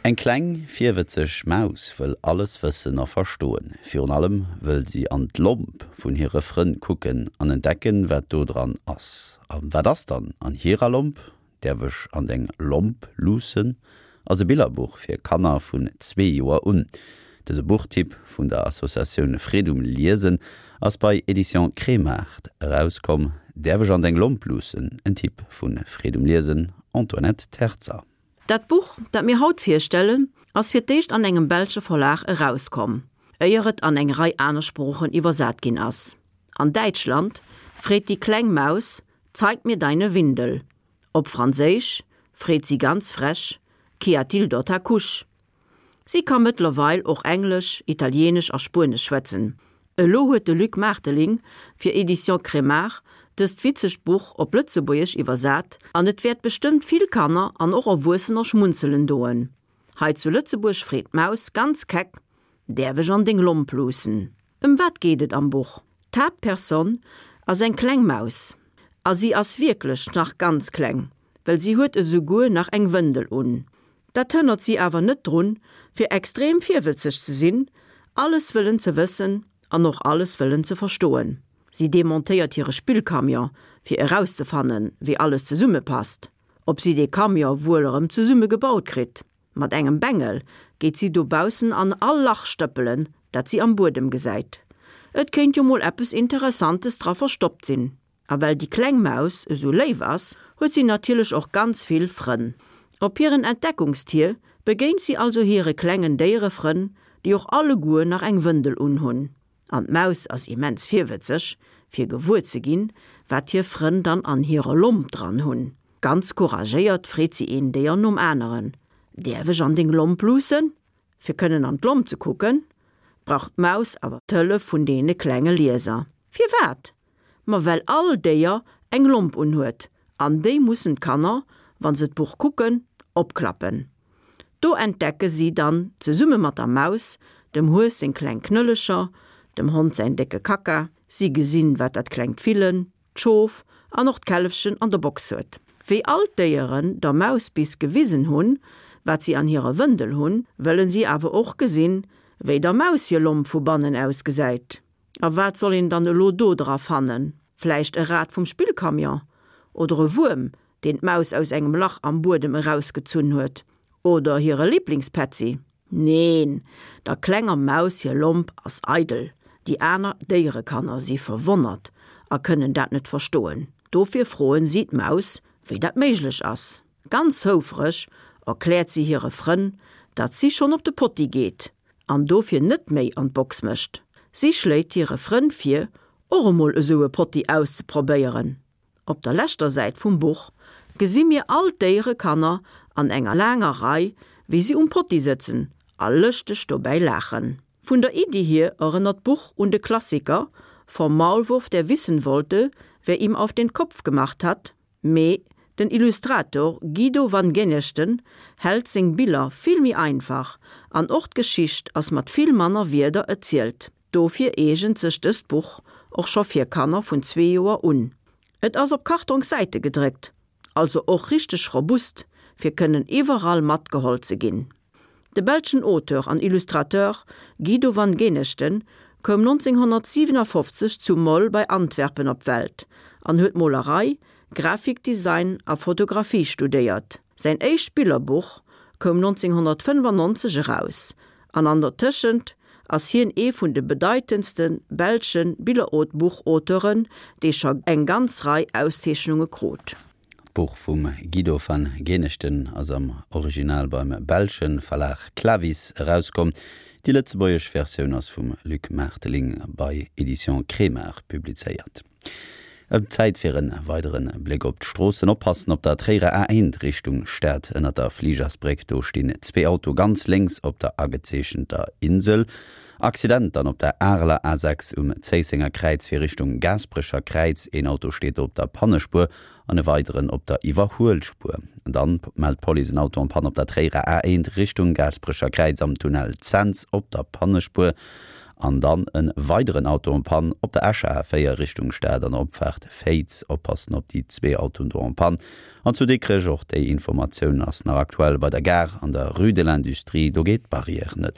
Eng kleng, virwëtzeg Maus wëll alles wëssen a verstoen. Virun allem wëll si an d'Lomp vun hire Frënn kucken an entdecken, wat do dran ass. A wat ass dann an hirer Lomp? Däerf ech an deng Lomp luussen? ass e Billerbuch fir Kanner vun zwee Joer un. Dëse Buchtipp vun der Associatioun Freed um Liesen ass bei Editions Kremart erauskomm. Däerf ech an deng Lomp luussen? En Tipp vu Freed um Liesen, Antoinette Terzer. Dat Buch, dat mir haut virstellen, ass fir d'éischt an engem belsche Verlag erauskomm, éier et an eng Rei aner Sproochen iwwersat ginn ass. An Däitschland freet déi kleng Maus, Zeig mir deine Windel. Op Franséisch freet si ganz frech, Qu'y a-t-il dans ta couche? Si ka mëttlerweil och Englesch, Italienesch a Spuenesch schwätzen. Elo huet de Luc Maarteling fir Editions Kremart dëst witzegt Buch op Lëtzebuergesch iwwersat an et wäert bestëmmt vill Kanner an och Erwuessener schmunzelen doen. Hei zu Lëtzebuerg freet d'Maus ganz keck, Däerf ech an deng Lomp luussen? Ëm wat geet et am Buch? D'Haaptperson ass eng kleng Maus a si ass wierklech nach ganz kleng, well si huet esouguer nach eng Wëndel un. Dat hënnert si awer net drun, fir extrem virwëtzeg ze sinn, alles wëllen ze wëssen an och alles wëllen ze verstoen. Si demontéiert hire Spillcamion, fir erauszefannen, wéi alles zesummepasst, ob si dee Camion wuel erëm zesumme gebaut kritt. Mat engem Bengel geet si dobaussen an all Lach stëppelen, dat si am Buedem gesäit. Et kéint jo mol eppes Interessantes dra verstoppt sinn. A well déi kleng Maus esou léif ass, huet si natierlech och ganz vill Frënn. Op hiren Entdeckungstier begéint si also hire klengen Déierefrënn, déi och alleguer nach eng Wëndel unhunn. An d'Maus ass immens virwëtzeg, fir gewuer ze ginn, wat hir Frënn dann an hirer Lomp dran hunn. Ganz couragéiert freet si een Déier nom aneren, Däerf ech an deng Lomp luussen? Fir kënnen an d'Lomp ze kucken, brauch d'Maus awer d'Hëllef vun deene klenge Lieser. Firwat? Ma well all Déier eng Lomp unhuet, an déi mussen d'Kanner, wa se d'Buch kucken, opklappen. Do entdecke si dann zesumme mat der Maus dem Hues seng kleng Knëllecher, dem Hond säin décke Kacka, si gesinn, wat dat klengt Villen, d'Schof an och d'Källefchen an der Box huet. Wéi all d'Déieren der Maus bis gewisen hunn, wat si an hirer Wëndel hunn, wëllen si awer och gesinn, wéi der Maus hir Lomp vu bannen ausgesäit. A wat soll een dann elo do dra fannen? Vläicht e Rad vum Spillcamion? Oder e Wuerm, deen d'Maus aus engem Lach am Buedem erausgezunn huet? Oder hire Liblingspätzi? Neen, der klenger Maus hir Lomp ass eidel. Déi aner Déierekanner si verwonnert a kënnen dat net verstoen. Dofir froen si d'Maus, wéi dat méiglech ass. Ganz houfreg erkläert si hire Frënn, datt si schonn op de Potti geet an dofir net méi an d'Box mécht. Si schléit hire Frënn vir, och emol esou e Potti auszeprobéieren. Op der leschter Säit vum Buch gesi mir all d'Déierekanner an enger laanger Rei, wéi si um Potti sëtzen a lëschteg dobäi laachen. Vun der Iddi hier erënnert d'Buch un de Klassiker Vom Maulwurf, der wissen wollte, wer ihm auf den Kopf gemacht hat, Mee den Illustrator Guido van Genechten hält seng Biller vill méi einfach an och d'Geschicht ass mat vill manner Wierder erzielt. Dofir eegent sech dëst Buch och scho fir Kanner vun zwee Joer un. Et ass op Kartongssäite gedréckt, also och richteg robust, fir kënnen iwwerall matgeholl ze ginn. De belschen Auteur an Illustrateur Guido van Genechten koum 1957 zu Mol bei Antwerpen op d'Welt an huet Molerei, Grafikdesign a Fotografie studéiert. Säin éischt Billerbuch koum 1995 eraus an an der Tëschent ass hien ee vun de bedeitendste belsche Billerbuchauteuren, dee scho eng ganz Rei Auszeechnunge krut. D'Buch vum Guido van Genechten ass am Original beim belsche Verlag Clavis erauskomm. Déi lëtzebuergesch Versioun ass vum Luc Maarteling bei Editions Kremart publizéiert. Et Zäit fir en weidere Bléck op d'Stroossen. Oppassen op der Tréierer A1 Richtung Stad ënnert der Fligersbréck, do stinn zwee Auto ganz lénks op der agezeechenter Insel. Accident dann op der Areler A6 um Zéissenger Kräiz fir Richtung Gaasperecher Kräiz. Een Auto steet do op der Pannespuer an e weideren op der Iwwerhuelspuer. Dann mellt d'Police en Auto en panne op der Tréierer A1 Richtung Gaasperecher Kräiz am Tunnel Cents op der Pannespuer. An dann e weideren Auto en panne op der Escher A4 Richtung Stad an der Opfaart Féiz. Oppassen op déi zwee Autoen do en panne. An zu Dikrech, och déi Informatioun ass nach aktuell, bei der Gare an der Rue de l'Industrie, do geet d'Barrière net.